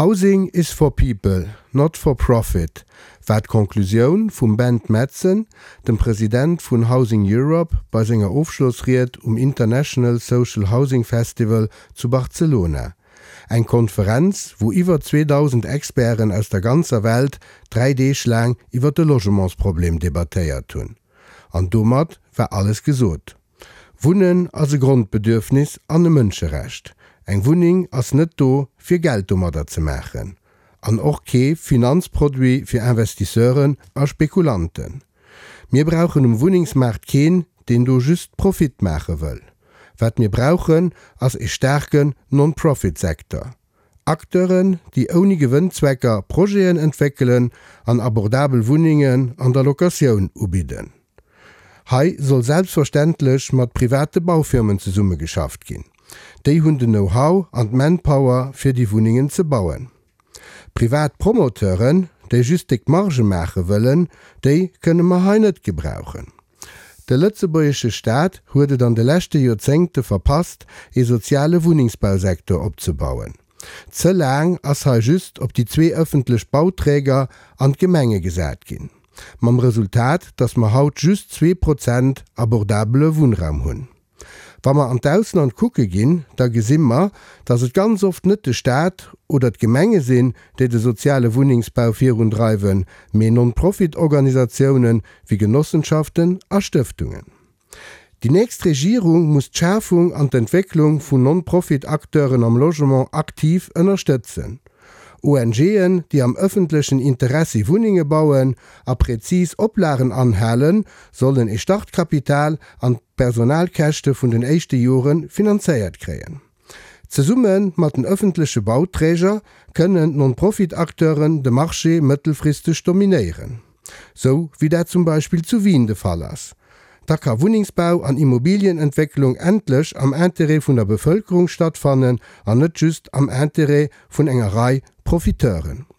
Housing is for people, not for profit war d'Conclusioun vum Bent Madsen, dem President vun Housing Europe, bei senger Ofschlossried um International Social Housing Festival zu Barcelona. Eng Konferenz, wou iwwer 2.000 Experten aus der ganzer Welt 3 Deeg laang iwwer de Logementsproblem debattéiert hunn. An domat war alles gesot. Wunnen ass e Grondbedürfnis an e Mënscherecht. Eng Wunneng ass net do, fir Geld domadder ze maachen. An och kee Finanzproduit fir Investisseuren a Spekulanten. Mir brauchen um Wunnengsmaart keen, deen do just Profit maache wëll. Wat mir brauchen, ass e staarken Non-Profit-Secteur. Acteuren, déi ouni Gewënnzwecker Projeten entwéckelen an abordabel Wunnengen an der Locatioun ubidden. Hei soll selbstverständlech mat private Baufirmen zesummegeschafft ginn. Déi hunn den Know-how an d'Manpower fir déi Wunnengen ze bauen. Privat Promoteuren, déi just déck Marge maache wëllen, déi kënne mer hei net gebrauchen. De lëtzebuergesche Staat huet et an de leschte Joerzéngte verpasst, ee soziale Wunnengsbausektor opzebauen. Ze laang ass hei just op déi zwee ëffentlech Bauträger an d'Gemenge gesat ginn, mam Resultat, datt mer haut just 2% abordabele Wunnraum hunn. Wa mer an d'Ausland kucke ginn, da gesi mer, datt et ganz oft net de Staat oder d'Gemenge sinn, déi de soziale Wunnengsbau virundreiwen, mee Non-Profit-Organisatiounen wéi Genossenschaften a Stëftungen. Déi nächst Regierung muss d'Schafung an d'Entwécklung vun Non-Profit-Acteuren am Logement aktiv ënnerstëtzen. ONGen, déi am ëffentlechen Interessi Wunnenge bauen a präzis Oplagen anhalen, sollen ee Startkapital an d'Personalkäschte vun den éischte Jore finanzéiert kréien. Zesumme mat den ëffentleche Bauträger kënnen d'Non-Profit-Acteuren de Marché mëttelfristeg dominéieren, sou wéi dat zum Beispill zu Wien de Fall ass. Da ka Wunnengsbau an Immobilienentwécklung endlech am Interêt vun der Bevëlkerung stattfannen an net just am Interêt vun enger Rei Profiteuren.